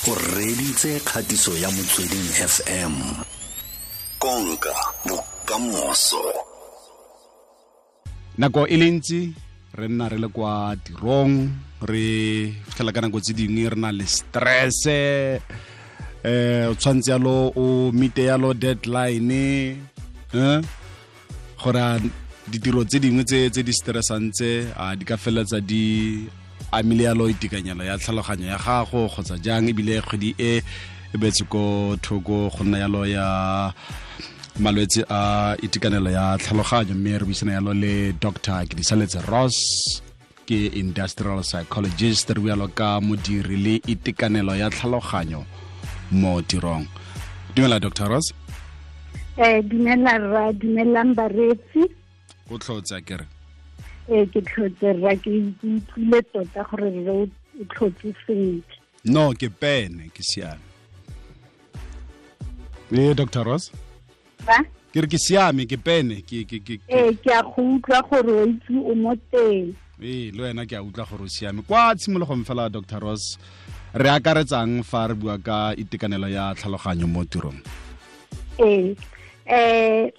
O reditse kgatiso ya Motsweding FM. Konka bokamoso. Nako e le ntsi re nna re le kwa tirong, re fitlhela ka nako tse dingwe re na le stress, o tshwanetse yalo o meete yalo deadline, gore ditiro tse dingwe tse di stressang tse a di ka feleletsa di amile yalo itekanyelo ya tlhaloganyo ya gago kgotsa jang. Ebile kgwedi e e beetse ko thoko go nna yalo ya malwetse a itekanelo ya tlhaloganyo, mme re buisana yalo le Dr. Kedisaletse Ross, ke industrial psychologist. Re bualo ka modiri le itekanelo ya tlhaloganyo mo tirong. Dumela, Dr. Ross. Dumela rra, dumelang bareetsi. O tlhotse, akere? Ee, ke tlhotse rra, ke utlwile tota gore rre o tlhotse sentle. No, ke pene, ke siame. Ee, Dr. Ross. Ba? Ke re ke siame, ke pene, ke ke ke Ee, ke a go utlwa gore o itse o mo teng. Ee, le wena ke a utlwa gore o siame. Kwa tshimologong fela, Dr. Ross, re akaretsang fa re bua ka itekanelo ya tlhaloganyo mo tirong? Ee,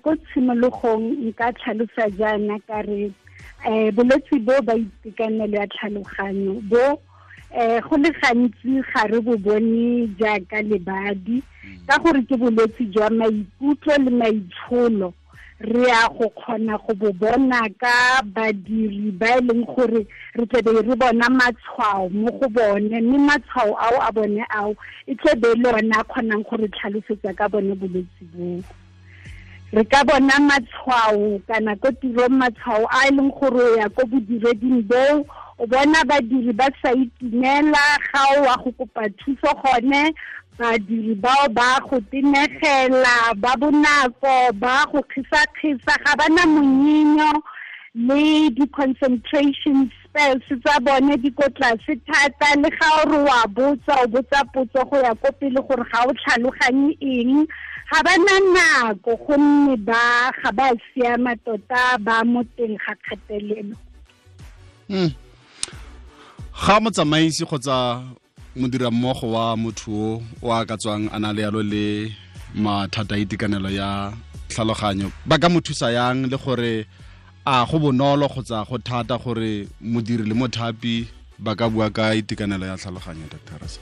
ko tshimologong nka tlhalosa jaana ka re bolwetse bo ba itekanelo ya tlhaloganyo bo go le gantsi ga re bo bone jaaka lebadi, ka gore ke bolwetse jwa maikutlo le maitsholo. Re ya go kgona go bo bona ka badiri ba e leng gore re tlebe re bona matshwao mo go bone, mme matshwao ao a bone ao e tlebe le one a kgonang go re tlhalosetsa ka bone bolwetse boo. Re ka bona matshwao kana ko tirong, matshwao a e leng gore o ya ko bodireding boo, o bona badiri ba sa itumela. Ga o wa go kopa thuso gone, badiri bao ba go tenegela, ba bonako, ba go kgisa-kgisa, ga bana monyenyo, le di-concentration spells tsa bone di ko tlase thata. Le ga o re wa botsa, o botsa potso go ya ko pele gore ga o tlhaloganye eng, ga bana nako, gonne ba ga ba siama tota, ba mo teng ga kgatelelo. Ga motsamaisi kgotsa modirammogo wa motho o a ka tswang a na le yalo le mathata a itekanelo ya tlhaloganyo, ba ka mo thusa yang, le gore a go bonolo kgotsa go thata gore modiri le mothapi ba ka bua ka itekanelo ya tlhaloganyo, Dr. Ross?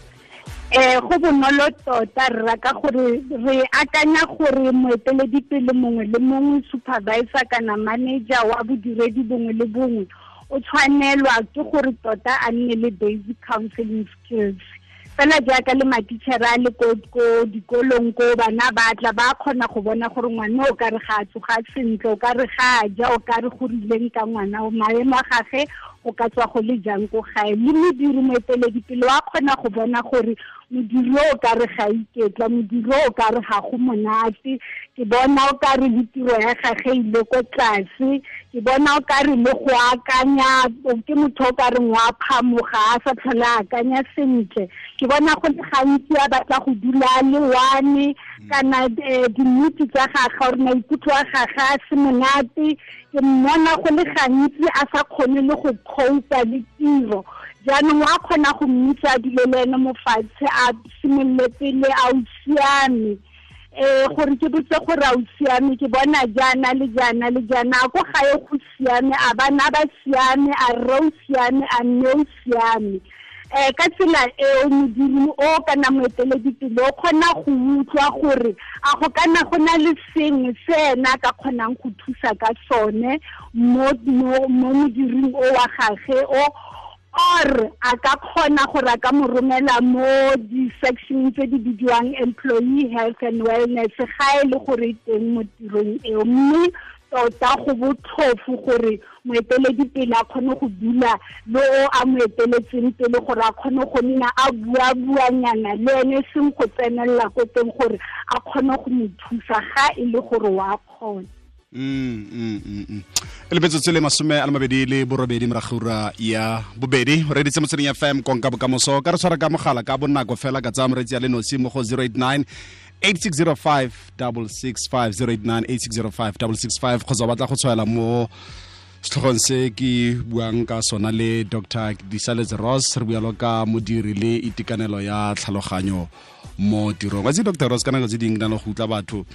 Go bonolo tota rra, ka gore re akanya gore moeteledipele mongwe le mongwe, supervisor kana manager wa bodiredi bongwe le bongwe, o tshwanelwa ke gore tota a nne le basic counseling skills, fela jaaka le matitšhere a le ko dikolong ko bana ba tla ba kgona go bona gore ngwana o ka re ga a tsoga sentle, o ka re ga a ja, o ka re go rileng ka ngwana o, maemo a gage go ka tswa go le jang ko gae. Le modiri, moeteledipele wa kgona go bona gore modiri o ka re ga iketla, modiri o ka re ga go monate, ke bona o ka re le tiro ya gage ile ko tlase, ke bona o ka re le go akanya ke motho o ka reng wa phamoga, a sa tlhole a akanya sentle, ke bona go le gantsi a batla go dula le one, kana dinnete tsa gagwe gore maikutlo a gagwe a se monate, ke mmona go le gantsi a sa kgone le go cope le tiro. Jaanong wa kgona go mmitsa a dule le ene mo fatshe, a simolole pele a o siame, gore ke botse gore a o siame, ke bona jaana le jaana le jaana, a ko gae go siame, a bana ba siame, a rre o siame, a mme o siame. Ka tsela eo modiri o kana moeteledipele o kgona go utlwa gore a go kana go na le sengwe se ena a ka kgonang go thusa ka sone mo modiring o wa gage o, or a ka kgona gore a ka mo romela mo di-section tse di bidiwang employee health and wellness, ga e le gore e teng mo tirong eo. Mme tota go botlhofo gore moeteledipele a kgone go dula le o a mo eteletseng pele, gore a kgone go nna a bua-buanyana le ene, seng go tsenelela ko teng, gore a kgone go mo thusa ga e le gore wa kgona. E le metsotso le 28 morago ura ya bobedi. O reditse Motsweding FM, konka bokamoso. Ka re tshwara ka mogala ka bonako fela, ka tsaya moreetsi ya le nosi mo go 089 8605 665, 089 8605 665, kgotsa o batla go tshwaela mo setlhogong se ke buang ka sona le Dr. Kedisaletse Ross, re bualo ka modiri le itekanelo ya tlhaloganyo mo tirong. Wa itse Dr. Ross, ka nako tse dingwe na le go utlwa batho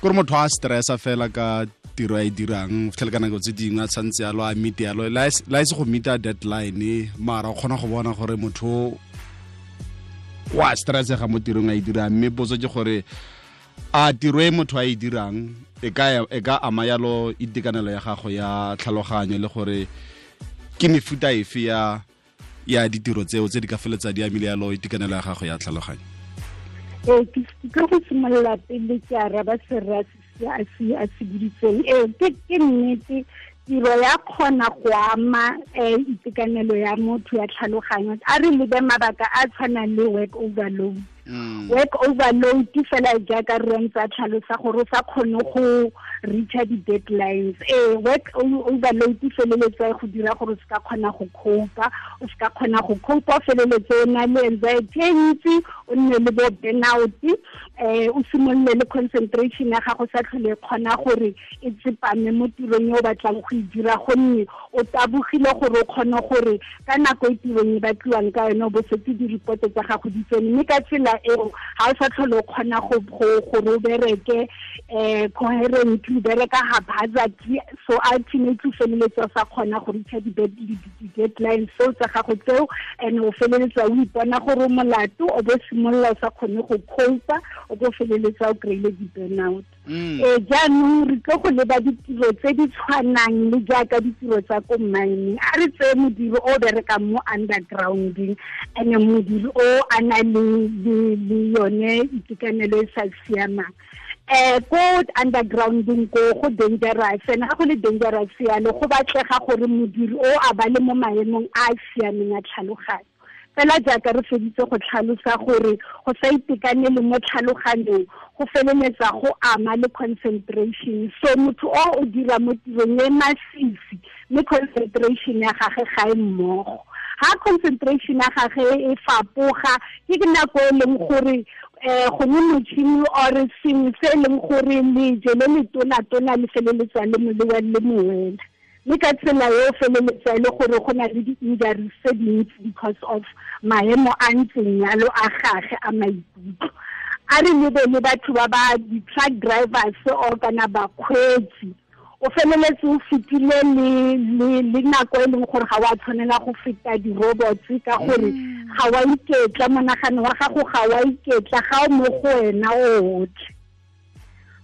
kore motho a stressa fela ka tiro a e dirang, fitlhele ka nako tse dingwe a tshwanetse yalo a meet yalo, la e se go meeta deadline, mara o kgona go bona gore motho wa stressega mo tirong a e dirang. Mme potso ke gore a tiro e motho a e dirang e ka ama yalo itekanelo ya gago ya tlhaloganyo, le gore ke mefuta efe ya ditiro tseo tse di ka feletsa di amile yalo itekanelo ya gago ya tlhaloganyo? Ee, ke tlo go simolola pele ke araba serra a se boditseng. Ee, ke nnete, tiro ya kgona go ama itekanelo ya motho ya tlhaloganyo. A re lebe mabaka a tshwanang le work overload. Work overload ke fela jaaka re ntse a tlhalosa gore o sa kgone go reacha di-deadlines. Ee, work overload e feleletsa go dira gore o se ka kgona go copa, o se ka kgona go copa, o feleletse o na le anxiety e ntsi, o nne le bo burnout, o simolole le concentration ya gago sa tlhole e kgona gore e tsepame mo tirong e o batlang go e dira, gonne o tabogile gore o kgone gore ka nako e tirong e batliwang ka yone o bo setse di-reporto tsa gago di tsene. Mme ka tsela eo ga o sa tlhole o kgona gore o bereke coherently, o bereka haphazardly, so ultimately o feleletsa o sa kgona go reacha di-deadlines tseo tsa gago tseo, and o feleletsa o ipona gore o molato, o bo simolola o sa kgone go copa, o bo feleletsa o kry-ile di-burnout. Jaanong re tlo go leba ditiro tse di tshwanang le jaaka ditiro tsa ko mining. A re tseye modiri o berekang mo undergrounding, and modiri o a na le yone itekanelo e sa siamang. Ko undergrounding ko go dangerous, and ga go le dangerous yalo go batlega gore modiri o a ba le mo maemong a a siameng a tlhaloganyo. Fela jaaka re feditse go tlhalosa gore go sa itekanele mo tlhaloganyong go feleletsa go ama le concentration. So motho o dira mo tirong e masisi, mme concentration ya gagwe ga e mmogo. Ha concentration ya gagwe e fapoga, ke nako e leng gore gongwe motšhini or sengwe se e leng gore leje le le tona-tona le feleletsa le le mowela. Mme ka tsela eo feleletsa e le gore go na le di-injuries tse dintsi because of maemo a ntseng yalo a gage a maikutlo. A re lebe le batho ba ba di-truck drivers or kana bakgweetsi, o feleletse o fetile le nako e leng gore ga wa tshwanela go feta di-robots, ka gore ga wa iketla, monagano wa gago ga wa iketla, ga o mo go wena o otlhe.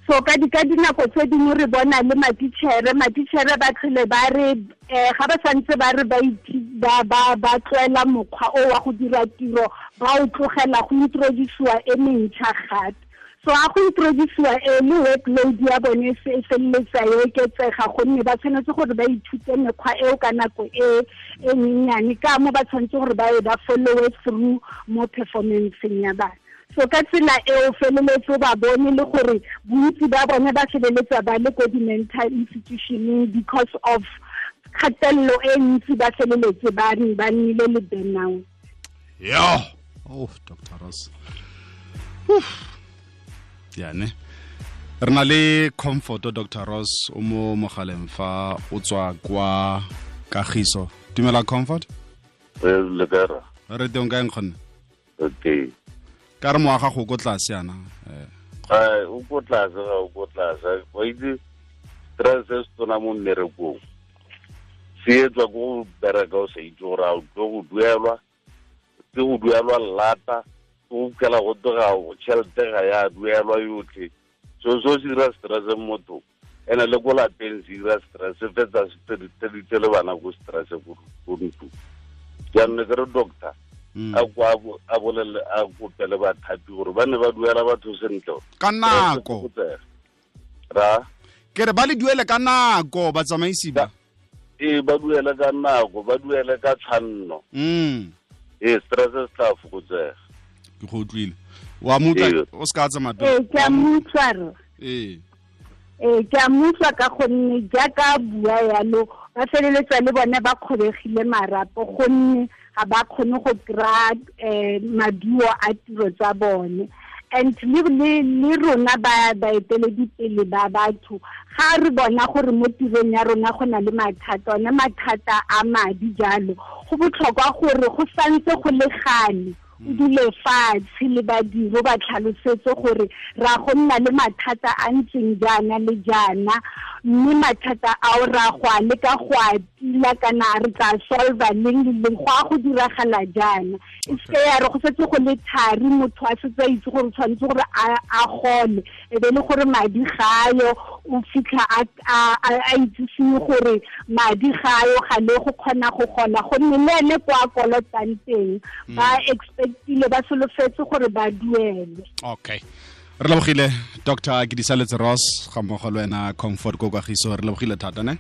So ka dinako tse dingwe re bona le matitjhere ba tlhole ba re ga ba santse ba re ba tlwaela mokgwa o wa go dira tiro, ba o tlogela go introduciwa e mentšha gape. So a go introduciwa e le workload ya bone e feleletsa e oketsega, gonne ba tshwanetse gore ba ithute mekgwa eo ka nako e e nyenyane, ka mo ba tshwanetse gore ba ye ba followe through mo performanceng ya bana. So ka tsela eo feleletse ba bone le gore bontsi ba bone ba feleletsa ba le ko di-mental institutioneng because of kgatelelo e ntsi, ba feleletse ba nnile le burnout. Yo, oh Dr. Ross. Yane re na le Comfort Dr. Ross o mo mogaleng fa o tswa kwa Kagiso. Dumela Comfort. Re le kae? Re teng kae nkgonne? Okay. Ka re moaga go ko tlase yana. O ko tlase, ga o ko tlase. Wa itse stress se tona mo mmerekong. Se etswa ko bereka o sa itse gore a o tlo go duelwa, ke go duelwa lata, o kela go tloga tšhelete ga ya duelwa yotlhe. So se dira stress motho. Ene le ko lapeng se dira stress, se fetsa se teditse le bana ko stress ko ntlong. Jaanong ke re doctor a bolele a kopele bathapi gore ba ne ba duela batho sentle ka nako. Ra ke re ba le duele ka nako batsamaisi ba. Ee, ba duele ka nako, ba duele ka tshwanno. Ee, stress se tla fokotsega. Ke go utlwile. Wa mutla o se ka tsamaya pele. Ee, ke a mutla. Ee. Ee, ke a mutla ka gonne jaaka bua yalo ba feleletsa le bone ba kgobegile marapo, gonne ga ba kgone go kry-a maduo a tiro tsa bone. And le rona ba baeteledipele ba batho, ga re bona gore mo tirong ya rona go na le mathata, one mathata a madi jalo, go botlhokwa gore go santse go le gale o dule fatshe le badiri o ba tlhalosetse gore ra go nna le mathata a ntseng jaana le jaana, mme mathata ao ra go a leka go a tila kana re tla solva leng le leng, go a go diragala jaana. E seke ya re go setse go le thari, motho a setse a itse gore tshwanetse gore a gole, e be le gore madi ga ayo, o fitlha a itsisiwe gore madi ga ayo, ga le go kgona go gola, gonne le ene kwa kolotang teng ba expectile, ba solofetse gore ba duele. Okay, re lebogile Dr. Kedisaletse Ross ga mmogo le wena Comfort ko Kagiso, re lebogile thata ne.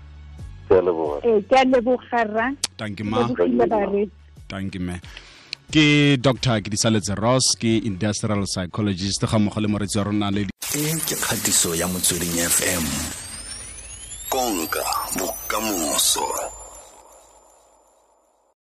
Ke a leboga. Ee, ke a leboga rra. Thank you ma. Lebogile bareetsi. Thank you me. Ke Dr. Kedisaletse Ross, ke industrial psychologist ga mmogo le moretsi wa rona le E ke kgatiso ya Motsweding FM, konka bokamoso.